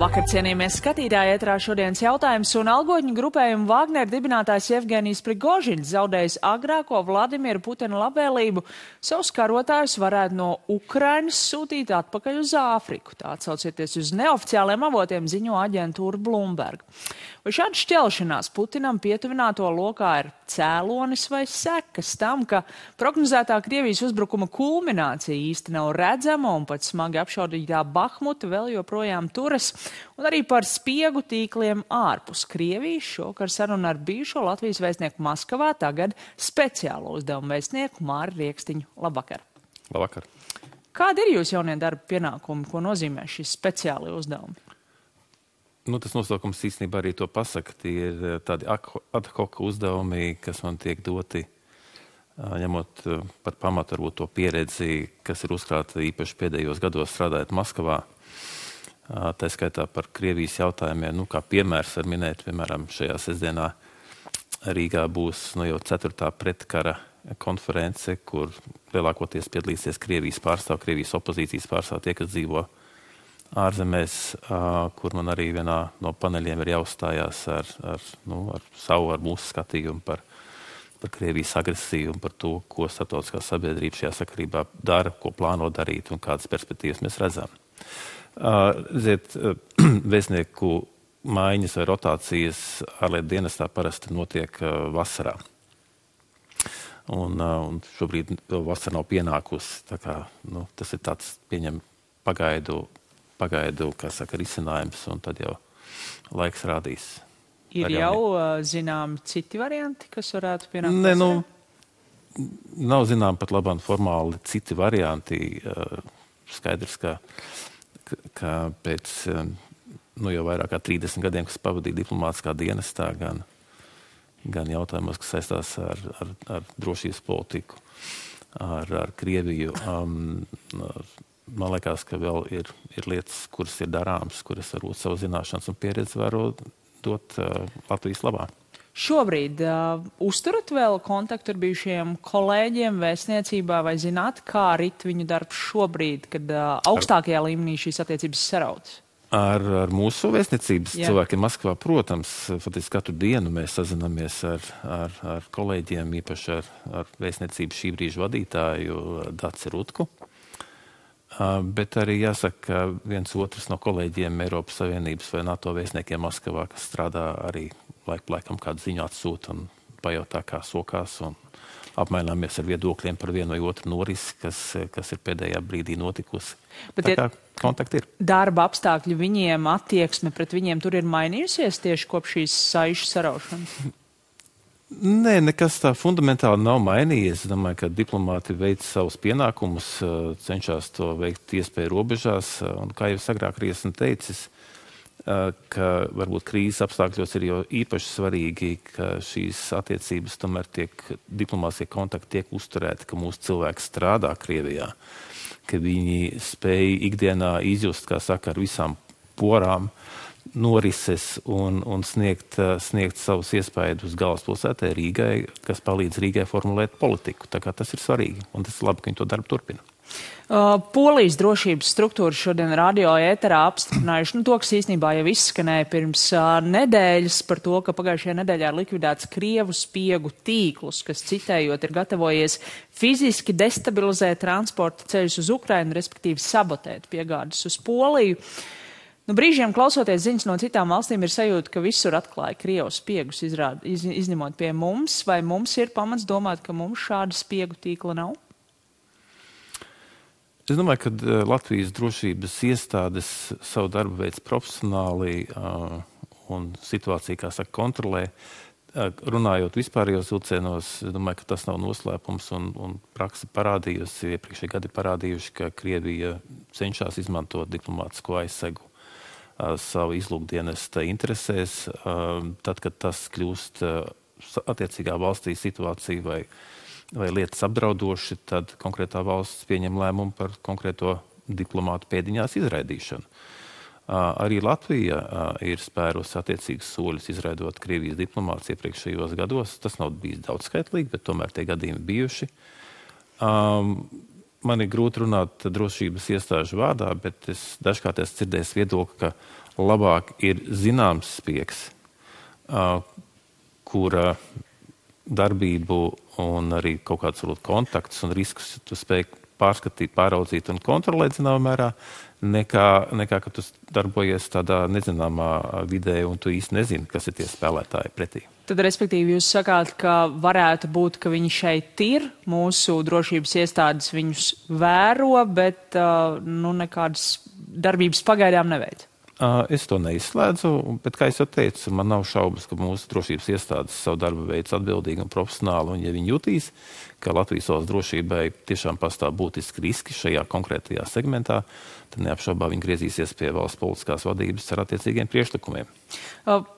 Labvakar, cienījamies skatītāji, ētrā šodienas jautājums, un algotņu grupējumu Wagner dibinātājs Jevgenijs Prigožiņš zaudējis agrāko Vladimira Putina labvēlību. Savus karotājus varētu no Ukrainas sūtīt atpakaļ uz Āfriku. Tā atsaucieties uz neoficiāliem avotiem, ziņo aģentūra Bloomberg. Vai šāda šķelšanās Putinam pietuvināto lokā ir cēlonis vai sekas tam, ka prognozētā Krievijas uzbrukuma kulminācija īsti nav redzama un pat smagi apšaudītā Bahmuta vēl joprojām turas, un arī par spiegu tīkliem ārpus Krievijas šokar saruna ar bijušo Latvijas vēstnieku Maskavā, tagad speciālo uzdevumu vēstnieku Māri Riekstiņu. Labvakar! Labvakar! Kādi ir jūs jaunie darba pienākumi, ko nozīmē šis speciāli uzdevumi? Tas nosaukums īstenībā arī to pasaka. Tie ir tādi ad hoc uzdevumi, kas man tiek doti, ņemot par pamatu varbūt to pieredzi, kas ir uzkrāta īpaši pēdējos gados strādājot Maskavā. Tā skaitā par Krievijas jautājumiem, kā piemērs var minēt, piemēram, šajā sestdienā Rīgā būs jau 4. pretkara konference, kur lielākoties piedalīsies Krievijas pārstāv, Krievijas opozīcijas pārstāv, tie, kas dzīvo ārzemēs, kur man arī vienā no paneļiem ir jāuzstājās ar mūsu skatījumu par Krievijas agresiju un par to, ko starptautiskā sabiedrība šajā sakarībā dara, ko plāno darīt un kādas perspektīvas mēs redzam. Vēstnieku maiņas vai rotācijas ārlietu dienestā parasti notiek vasarā. Un šobrīd vasara nav pienākusi. Tā kā, tas ir tāds pieņem pagaidu, risinājums, un tad jau laiks rādīs. Ir jau zinām citi varianti, kas varētu pienākt? Nav zinām pat labāk formāli citi varianti. Skaidrs, ka pēc jau vairāk kā 30 gadiem, kas pavadīja diplomātiskā dienestā, gan jautājumos, kas saistās ar drošības politiku, ar Krieviju, man liekas, ka vēl ir lietas, kuras ir darāmas, kuras varbūt savu zināšanas un pieredzi varu dot Latvijas labā. Šobrīd uzturat vēl kontaktu ar bijušajiem kolēģiem vēstniecībā vai zināt, kā rit viņu darbs šobrīd, kad augstākajā līmenī šīs attiecības sarautas? Ar mūsu vēstniecības cilvēkiem Maskavā, protams, faktiski katru dienu mēs sazinamies ar kolēģiem, īpaši ar vēstniecības šī brīža vadītāju Daci Rutku. Bet arī jāsaka, ka viens otrs no kolēģiem Eiropas Savienības vai NATO vēstniekiem Maskavā, kas strādā arī laikam kādu ziņu atsūta un pajautā, kā sokās, un apmaināmies ar viedokļiem par vienu vai otru norisi, kas ir pēdējā brīdī notikusi. Bet tā kā kontakti ir. Darba apstākļi viņiem, attieksme pret viņiem tur ir mainījusies tieši kopš šīs saišu saraušanas? Nē, nekas tā fundamentāli nav mainījies. Es domāju, ka diplomāti veic savus pienākumus, cenšas to veikt iespēju robežās. Un kā jau agrāk arī esmu teicis, ka varbūt krīzes apstākļos ir jau īpaši svarīgi, ka šīs attiecības tomēr diplomātiskie kontakti tiek uzturēti, ka mūsu cilvēki strādā Krievijā, ka viņi spēj ikdienā izjust, kā saka, ar visām porām, norises un sniegt savus iespējas uz galvaspilsētai Rīgai, kas palīdz Rīgai formulēt politiku. Tā kā tas ir svarīgi, un tas ir labi, ka viņi to darbu turpina. Polijas drošības struktūras šodien radio ēterā apstiprinājuši to, kas īstenībā jau izskanēja pirms nedēļas par to, ka pagājušajā nedēļā ir likvidēts Krievu spiegu tīklus, kas, citējot, ir gatavojies fiziski destabilizēt transporta ceļus uz Ukrainu, respektīvi sabotēt piegādes uz Poliju. Brīžiem klausoties ziņas no citām valstīm ir sajūta, ka visur atklāja Krievu spiegus, izņemot pie mums, vai mums ir pamats domāt, ka mums šāda spiegu tīkla nav? Es domāju, ka Latvijas drošības iestādes savu darbu veids profesionāli un situāciju, kā saka, kontrolē. Runājot vispārējos vilcienos, es domāju, ka tas nav noslēpums un praksa parādījusi, iepriekšēji gadi parādījuši, ka Krievija cenšas izmantot diplomātisko aizsegu savu izlūkdienesta interesēs, tad, kad tas kļūst attiecīgā valstī situācija vai lietas apdraudoši, tad konkrētā valsts pieņem lēmumu par konkrēto diplomātu pēdiņās izraidīšanu. Arī Latvija ir spērusi attiecīgus soļus izraidot Krievijas diplomātus iepriekšējos gados. Tas nav bijis daudzskaitlīgi, bet tomēr tie gadījumi bijuši. Man ir grūti runāt drošības iestāžu vārdā, bet es dažkārt esmu dzirdējis viedokli, ka labāk ir zināms spiegs, kura darbību un arī kaut kāds kontaktus un riskus tu spēj pārskatīt, pāraudzīt un kontrolēt zināmā mērā, nekā ka tu darbojies tādā nezināmā vidē un tu īsti nezini, kas ir tie spēlētāji pretī. Tad, respektīvi, jūs sakāt, ka varētu būt, ka viņi šeit ir, mūsu drošības iestādes viņus vēro, bet nekādas darbības pagaidām neveic. Es to neizslēdzu, bet, kā es jau teicu, man nav šaubas, ka mūsu drošības iestādes savu darbu veids atbildīgi un profesionāli, un ja viņi jutīs, ka Latvijas valsts drošībai tiešām pastāv būtiski riski šajā konkrētajā segmentā, tad neapšaubā viņi griezīsies pie valsts politiskās vadības ar attiecīgiem priekšlikumiem.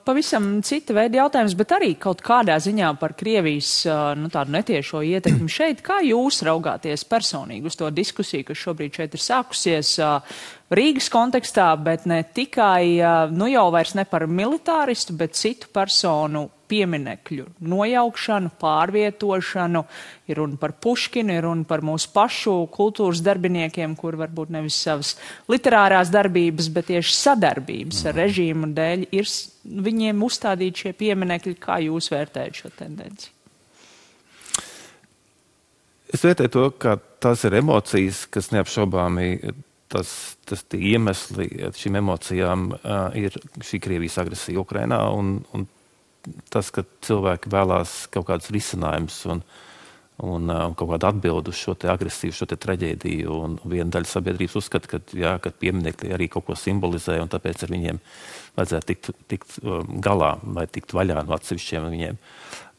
Pavisam cita veida jautājums, bet arī kaut kādā ziņā par Krievijas tādu netiešo ietekmi šeit. Kā jūs raugāties personīgi uz to diskusiju, kas šobrīd šeit ir sākusies Rīgas kontekstā, bet ne tikai, jau vairs ne par militāristu, bet citu personu pieminekļu nojaukšanu, pārvietošanu, ir runa par Puškinu, ir runa par mūsu pašu kultūras darbiniekiem, kur varbūt nevis savas literārās darbības, bet tieši sadarbības ar režīmu dēļ ir viņiem uzstādīti šie pieminekļi. Kā jūs vērtējat šo tendenci? Es vērtēju to, ka tās ir emocijas, kas neapšaubāmi tie iemesli šīm emocijām ir šī Krievijas agresija Ukrainā un tas, ka cilvēki vēlās kaut kādus risinājumus un kaut kādu atbildu uz šo te agresiju, šo te traģēdiju. Un viena daļa sabiedrības uzskata, ka pieminekļi arī kaut ko simbolizē, un tāpēc ar viņiem vajadzētu tikt galā vai tikt vaļā no atsevišķiem viņiem.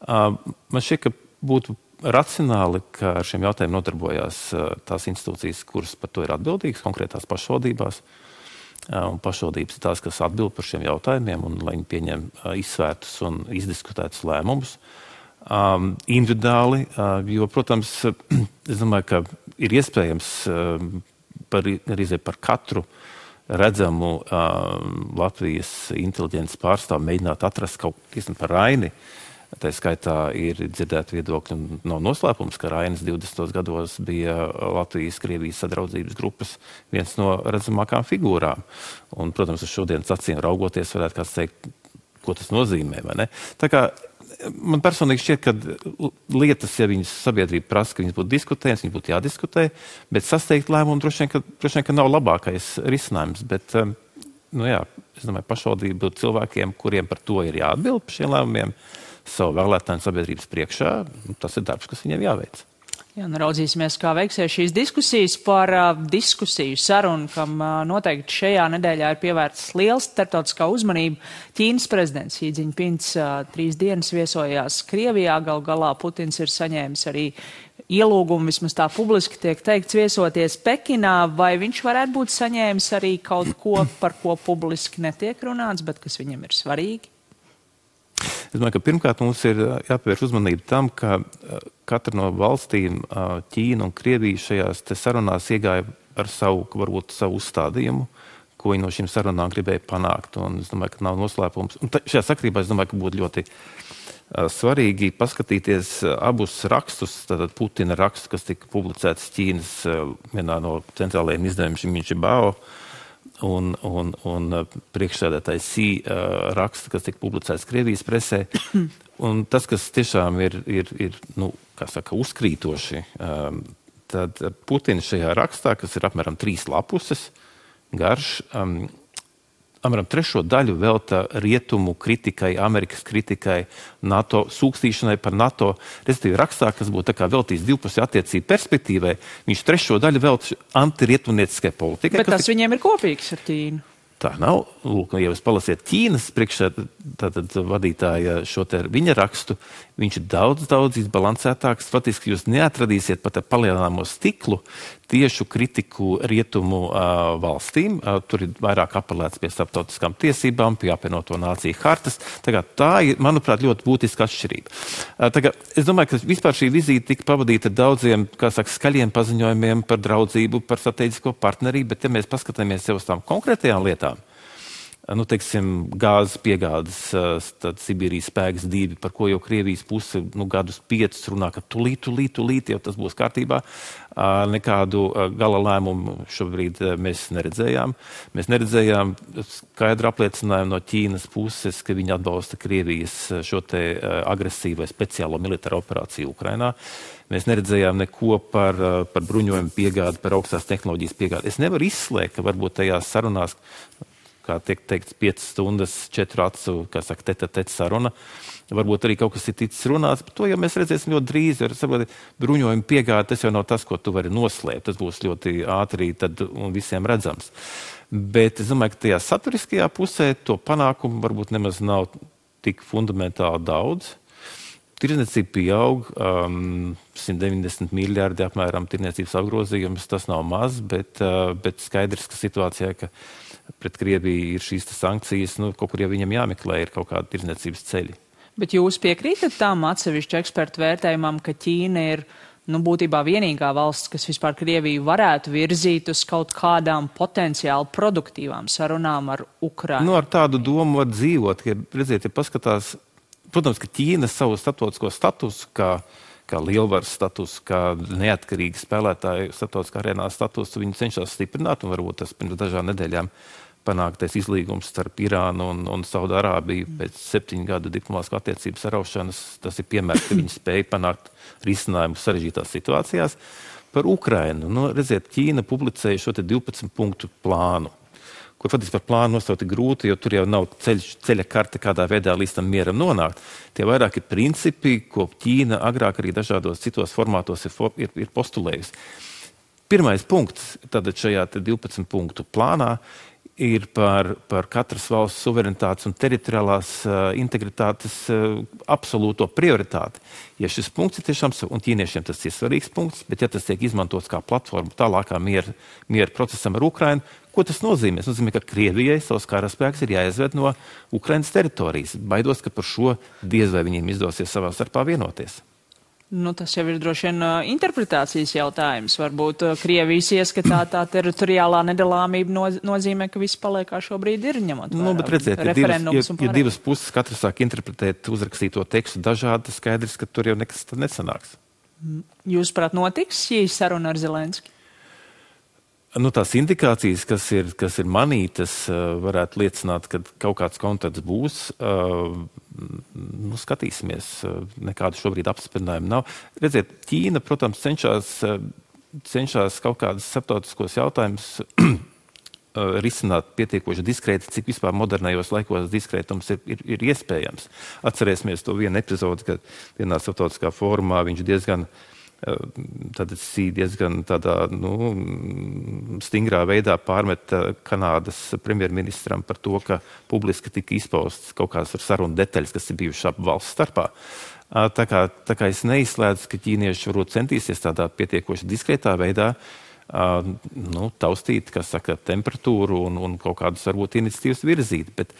Man šķiet, ka būtu racionāli, ka ar šiem jautājumiem nodarbojās tās institūcijas, kuras par to ir atbildīgas, konkrētās pašvaldībās. Un pašvaldības ir tās, kas atbild par šiem jautājumiem, un lai viņi pieņem izsvērtus un izdiskutētus lēmumus individuāli, jo, protams, es domāju, ka ir iespējams par katru redzamu Latvijas inteliģences pārstāvu mēģināt atrast kaut ko par Raini. Tā skaitā ir dzirdēti viedokļi, un nav noslēpums, ka Rainis 20. gados bija Latvijas-Krievijas sadraudzības grupas viens no redzamākām figūrām. Un, protams, uz šodienas acīm raugoties, varētu kāds teikt, ko tas nozīmē, vai ne? Tā kā man personīgi šķiet, ka lietas, ja viņas sabiedrība prasa, ka viņas būtu diskutējas, viņas būtu jādiskutē, bet sasteigt lēmumu droši vien, ka nav labākais risinājums. Bet, es domāju, pašvaldību cilvēkiem, kuriem par to ir jāatbild par šiem lēmumiem, savu vēlētāju sabiedrības priekšā, tas ir darbs, kas viņiem jāveic. Jā, raudzīsimies, kā veiksies šīs diskusijas par diskusiju sarunu, kam noteikti šajā nedēļā ir pievērsts liels starptautiskā uzmanība. Ķīnas prezidents Xi Jinpings 3 dienas viesojās Krievijā, galā Putins ir saņēmis arī ielūgumu, vismaz tā publiski tiek teikts, viesoties Pekinā, vai viņš varētu būt saņēmis arī kaut ko, par ko publiski netiek runāts, bet kas viņam ir svarīgi? Es domāju, ka pirmkārt mums ir jāpievērš uzmanība tam, ka katra no valstīm, Ķīna un Krievija šajās te sarunās iegāja ar varbūt savu uzstādījumu, ko viņi no šīm sarunām gribēja panākt. Un es domāju, ka nav noslēpums. Un šajā sakrībā es domāju, ka būtu ļoti svarīgi paskatīties abus rakstus, tātad Putina rakstu, kas tika publicēts Ķīnas vienā no centrālajiem izdevumiem Xinjiang, un priekšsēdētājs Xi raksta, kas tika publicēts Krievijas presē. Un tas, kas tiešām ir uzkrītoši, tad Putins šajā rakstā, kas ir apmēram 3 lapuses garš, apmēram 3. daļu velta rietumu kritikai, Amerikas kritikai, NATO sūkstīšanai par NATO. Respektīvi rakstā, kas būtu tā kā veltīts divpusēju attiecību perspektīvai, viņš 3. daļu velta antirietumnieciskai politikai. Bet tas viņiem ir kopīgs ar Ķīnu. Tā nav. Lūk, ja jūs palasiet Ķīnas vadītāja šo te viņa rakstu, viņš ir daudz izbalansētāks. Faktiski jūs neatradīsiet pat ar palielināmo stiklu tiešu kritiku rietumu valstīm. Tur ir vairāk apelēts pie starptautiskām tiesībām, pie apvienoto nāciju hartas. Tā ir, manuprāt, ļoti būtiska atšķirība. Es domāju, ka vispār šī vizīte tika pavadīta daudziem, skaļiem paziņojumiem par draudzību, par strateģisko partnerību, bet ja mēs paskatāmies jau uz tām konkrētajām lietām, teiksim, gāzes piegādes, tad Sibīrijas spēks 2, par ko jau Krievijas puse gadus 5 runā, ka tulīt, jau tas būs kārtībā. Nekādu gala lēmumu šobrīd mēs neredzējām. Mēs neredzējām skaidru apliecinājumu no Ķīnas puses, ka viņi atbalsta Krievijas šo te agresīvu vai speciālo militāro operāciju Ukrainā. Mēs neredzējām neko par bruņojumu piegādi, par augstās tehnoloģijas piegādi. Es nevaru izslēgt, ka varbūt tajās sarunās, kā tiek teikts, 5 stundas, 4 acu, kā saka, tete saruna. Varbūt arī kaut kas ir ticis runāts, bet to jau mēs redzēsim ļoti drīz. Bruņojuma piegāde, tas jau nav tas, ko tu vari noslēpt. Tas būs ļoti ātri tad un visiem redzams. Bet es domāju, ka tajā saturiskajā pusē to panākumu varbūt nemaz nav tik fundamentāli daudz. Tirdzniecība pieaug, 190 miljardi apmēram tirdzniecības apgrozījums, tas nav maz, bet skaidrs, ka situācijā, ka pret Krieviju ir šīs sankcijas, kaut kur jau viņam jāmeklē ir kaut kāda tirdzniecības ceļi. Bet jūs piekrītat tām atsevišķu ekspertu vērtējumam, ka Ķīna ir būtībā vienīgā valsts, kas vispār Krieviju varētu virzīt uz kaut kādām potenciāli produktīvām sarunām ar Ukrainu? Ar tādu domu var dzīvot, ja redziet, ja paskatās. Protams, ka Ķīna savu starptautisko statusu, kā lielvaras statusu, kā neatkarīgi spēlētāju starptautiskā arēnā statusu, viņi cenšas stiprināt, un varbūt tas pirms dažām nedēļām panāktais izlīgums starp Irānu un Saudārābiju pēc 7 gadu diplomātiskā attiecību saraušanas. Tas ir piemērs, ka viņi spēja panākt risinājumu sarežģītās situācijās. Par Ukrainu. Redziet, Ķīna publicēja šo te 12 punktu plānu, kur faktiski par plānu nosaukt ir grūti, jo tur jau nav ceļa karte, kādā veidā līdz tam mieram nonākt. Tie vairāki principi, ko Ķīna agrāk arī dažādos citos formātos ir postulējusi. Pirmais punkts tātad šajā 12 punktu plānā ir par katras valsts suverenitātes un teritoriālās integritātes absolūto prioritāti. Ja šis punkts ir tiešām, un ķīniešiem tas ir svarīgs punkts, bet ja tas tiek izmantots kā platforma tālākā miera procesam ar Ukrainu, ko tas nozīmē? Tas nozīmē, ka Krievijai savs karaspēks ir jāizved no Ukrainas teritorijas. Baidos, ka par šo diez vai viņiem izdosies savā starpā vienoties. Tas jau ir droši vien interpretācijas jautājums. Varbūt Krievijas ieskatā tā teritoriālā nedalāmība nozīmē, ka viss paliek kā šobrīd ir, ņemot vērā referendums un pārējais. Ja divas puses katrs sāk interpretēt uzrakstīto tekstu dažādi, skaidrs, ka tur jau nekas tad nesanāks. Jūsuprāt, notiks šī saruna ar Zelenski? Tās indikācijas, kas ir manītas, varētu liecināt, ka kaut kāds kontakts būs. Skatīsimies, nekādu šobrīd apspriedinājumu nav. Redziet, Ķīna, protams, cenšas kaut kādus starptautiskos jautājumus risināt pietiekoši diskrēti, cik vispār modernajos laikos diskrētums ir iespējams. Atcerēsimies to vienu epizodi, kad vienā starptautiskā fórumā viņš diezgan tādā stingrā veidā pārmet Kanādas premjerministram par to, ka publiski tika izpausts kaut kādas sarunu detaļas, kas ir bijušas ap valsts starpā. Tā kā es neizslēdzu, ka ķīnieši varbūt centīsies tādā pietiekoši diskrētā veidā taustīt, kas saka, temperatūru un kaut kādus varbūt iniciatīvas virzīt, bet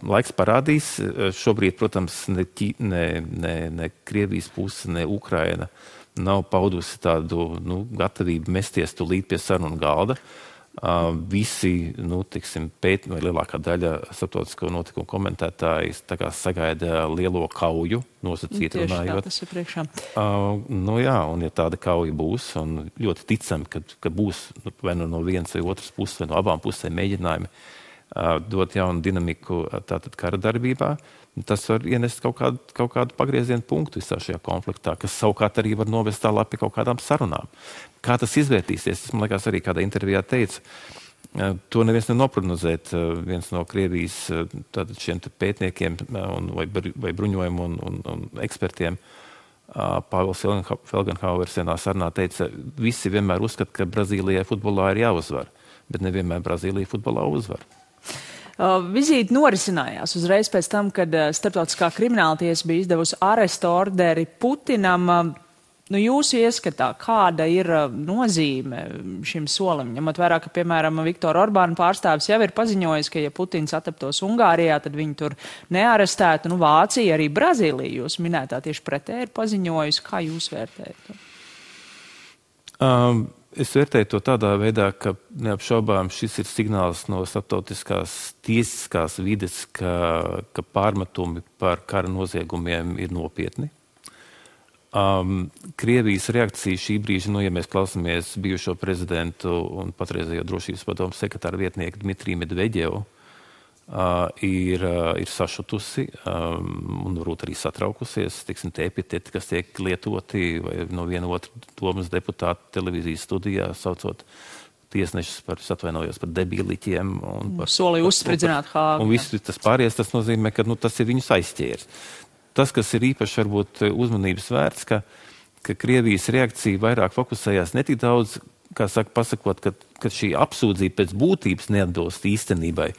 laiks parādīs. Šobrīd, protams, ne Krievijas puse, ne Ukraina nav paudusi tādu gatavību mesties tūlīt pie sarunu galda. Visi, vai lielākā daļa starptautisko notikumu komentētāji sagaida lielo kauju, nosacīti runājot. Tieši tā, tas ir priekšā. Un ja tāda kauja būs, un ļoti ticami, ka būs vai no vienas vai otras puses, vai no abām pusēm mēģinājumi dot jaunu dinamiku tātad kara darbībā, tas var ienest kaut kādu pagriezienu punktu visā šajā konfliktā, kas savukārt arī var novest tālāk pie kaut kādām sarunām. Kā tas izvērtīsies, tas man liekas arī kādā intervijā teica, to neviens neprognozēt. Viens no Krievijas tātad šiem pētniekiem vai bruņojumu un ekspertiem, Pāvils Felgenhauers vienā sarunā teica, visi vienmēr uzskata, ka Brazīlijai futbolā ir jāuzvar, bet nevienmēr Brazīlija futbolā uzvar. Vizīte norisinājās uzreiz pēc tam, kad Starptautiskā krimināltiesa bija izdevusi arestu orderi Putinam. Jūsu ieskatā, kāda ir nozīme šim solim? Ņemot vērā, ka, piemēram, Viktora Orbāna pārstāvis jau ir paziņojis, ka, ja Putins ataptos Ungārijā, tad viņu tur nearestētu. Vācija, arī Brazīlija, jūs minētā tieši pretēji ir paziņojusi. Kā jūs vērtējat? Es vērtēju to tādā veidā, ka neapšaubām šis ir signāls no starptautiskās tiesiskās vides, ka pārmetumi par kara noziegumiem ir nopietni. Krievijas reakcija šī brīža, ja mēs klausāmies bijušo prezidentu un patreizējo drošības padomu sekretāru vietnieku Dmitriju Medveģevu, ir sašutusi un varbūt arī satraukusies, tiksim, tie epiteti, kas tiek lietoti vai no viena otra domas deputāta televīzijas studijā, saucot tiesnešus par debīliķiem. Solīja uzspridzināt Hāgu. Un viss tas pārējais, tas nozīmē, ka tas ir viņus aizķēris. Tas, kas ir īpaši varbūt uzmanības vērts, ka Krievijas reakcija vairāk fokusējās ne tik daudz, kā saka, pasakot, ka šī apsūdzība pēc būtības neatbilst īstenībai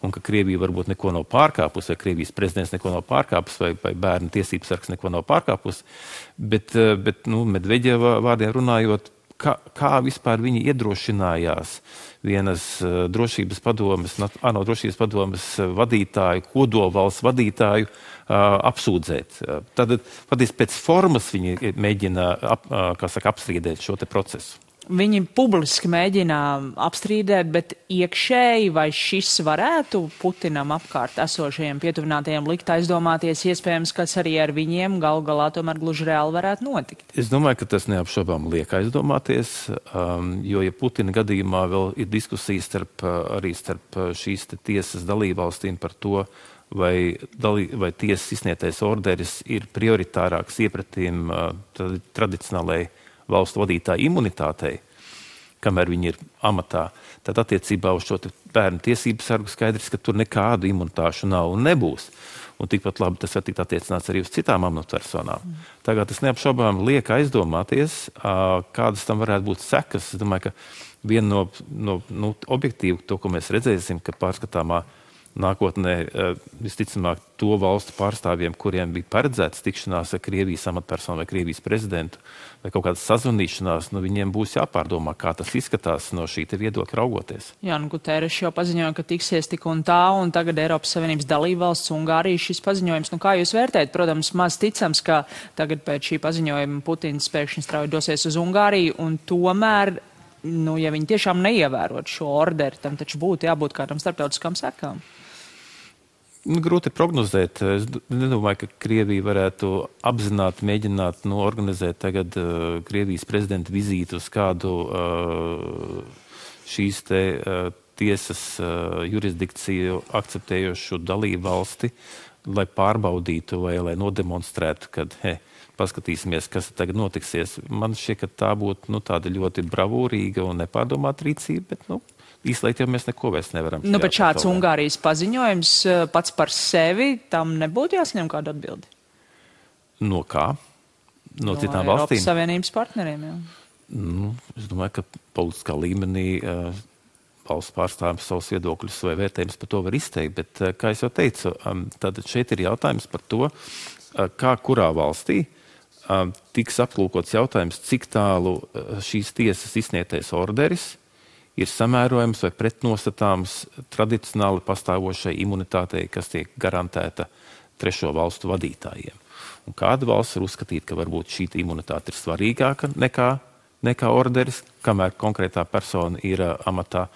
un ka Krievija varbūt neko nav pārkāpusi, vai Krievijas prezidents neko nav pārkāpusi, vai bērnu tiesības sargs neko nav pārkāpusi, bet Medveģeva vārdiem runājot, kā vispār viņi iedrošinājās vienas drošības padomes, ANO drošības padomes vadītāju, kodolvalsts vadītāju apsūdzēt. Tad pēc formas viņi mēģina apstrīdēt šo te procesu. Viņi publiski mēģina apstrīdēt, bet iekšēji vai šis varētu Putinam apkārt esošajiem pietuvinātajiem likt aizdomāties, iespējams, kas arī ar viņiem galu galā tomēr gluži reāli varētu notikt? Es domāju, ka tas neapšaubām liek aizdomāties, jo, ja Putina gadījumā vēl ir diskusijas arī starp šīs tiesas dalībvalstīm par to, vai tiesas izsniegtais orderis ir prioritārāks iepratīm tradicionālai valstu vadītāju imunitātei, kamēr viņi ir amatā, tad attiecībā uz šo bērnu tiesību sargu skaidrs, ka tur nekādu imunitāšu nav un nebūs. Un tikpat labi tas var tikt attiecināts arī uz citām amatpersonām. Tagad tas neapšaubām liek aizdomāties, kādas tam varētu būt sekas. Es domāju, ka viena no objektīvu, to, ko mēs redzēsim, ka pārskatāmā nākotnē visticamāk to valstu pārstāvjiem, kuriem bija paredzēts tikšanās ar Krievijas amatpersonu vai Krievijas prezidentu vai kaut kādas sazvanīšanās, viņiem būs jāpārdomā, kā tas izskatās no šī te viedokļa raugoties. Jā, Guterres jau paziņoja, ka tiksies tik un tā, un tagad Eiropas Savienības dalībvalsts Ungārija šis paziņojums. Kā jūs vērtējat? Protams, maz ticams, ka tagad pēc šī paziņojuma Putins pēkšņi strauji dosies uz Ungāriju, un tomēr, ja viņi tiešām neievērot šo orderi, tam taču būtu jābūt kādam starptautiskām sekām. Grūti prognozēt. Es nedomāju, ka Krievija varētu apzināti mēģināt organizēt tagad Krievijas prezidenta vizīti uz kādu šīs te tiesas jurisdikciju akceptējošu dalību valsti, lai pārbaudītu vai lai nodemonstrētu, kad paskatīsimies, kas tagad notiksies. Man šķiet, ka tā būtu tāda ļoti bravūrīga un nepārdomāta rīcība, bet īslēgt jau mēs neko vairs nevaram. Bet šāds Ungārijas paziņojums pats par sevi, tam nebūtu jāsaņem kādu atbildi? No kā? No citām valstīm? Eiropas Savienības partneriem, jā. Es domāju, ka politiskā līmenī valsts pārstāvjums savus viedokļus vai vērtējumus par to var izteikt, bet, kā es jau teicu, tad šeit ir jautājums par to, kā kurā valstī tiks aplūkots jautājums, cik tālu šīs tiesas izsniegtais orderis ir samērojams vai pretnostatāms tradicionāli pastāvošai imunitātei, kas tiek garantēta trešo valstu vadītājiem. Un kāda valsts var uzskatīt, ka varbūt šī imunitāte ir svarīgāka nekā orderis, kamēr konkrētā persona ir amatā.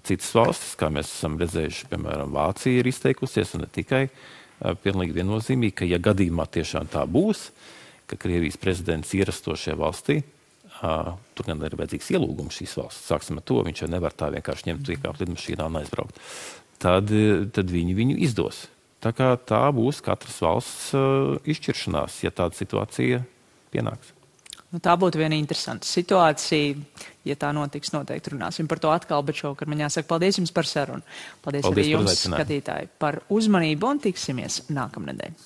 Citas valstis, kā mēs esam redzējuši, piemēram, Vācija ir izteikusies, un ne tikai pilnīgi viennozīmīgi, ka ja gadījumā tiešām tā būs, ka Krievijas prezidents ierasto šajā valstī, tur gan ir vajadzīgs ielūgums šīs valsts. Sāksim ar to, viņš jau nevar tā vienkārši ņemt iekāpt lidmašīnā un aizbraukt. Tad viņi viņu izdos. Tā kā tā būs katras valsts izšķiršanās, ja tāda situācija pienāks. Tā būtu viena interesanta situācija. Ja tā notiks, noteikti runāsim par to atkal, bet šovakar man jāsaka paldies jums par sarunu. Paldies arī jums, skatītāji, par uzmanību un tiksimies nākamnedēļ.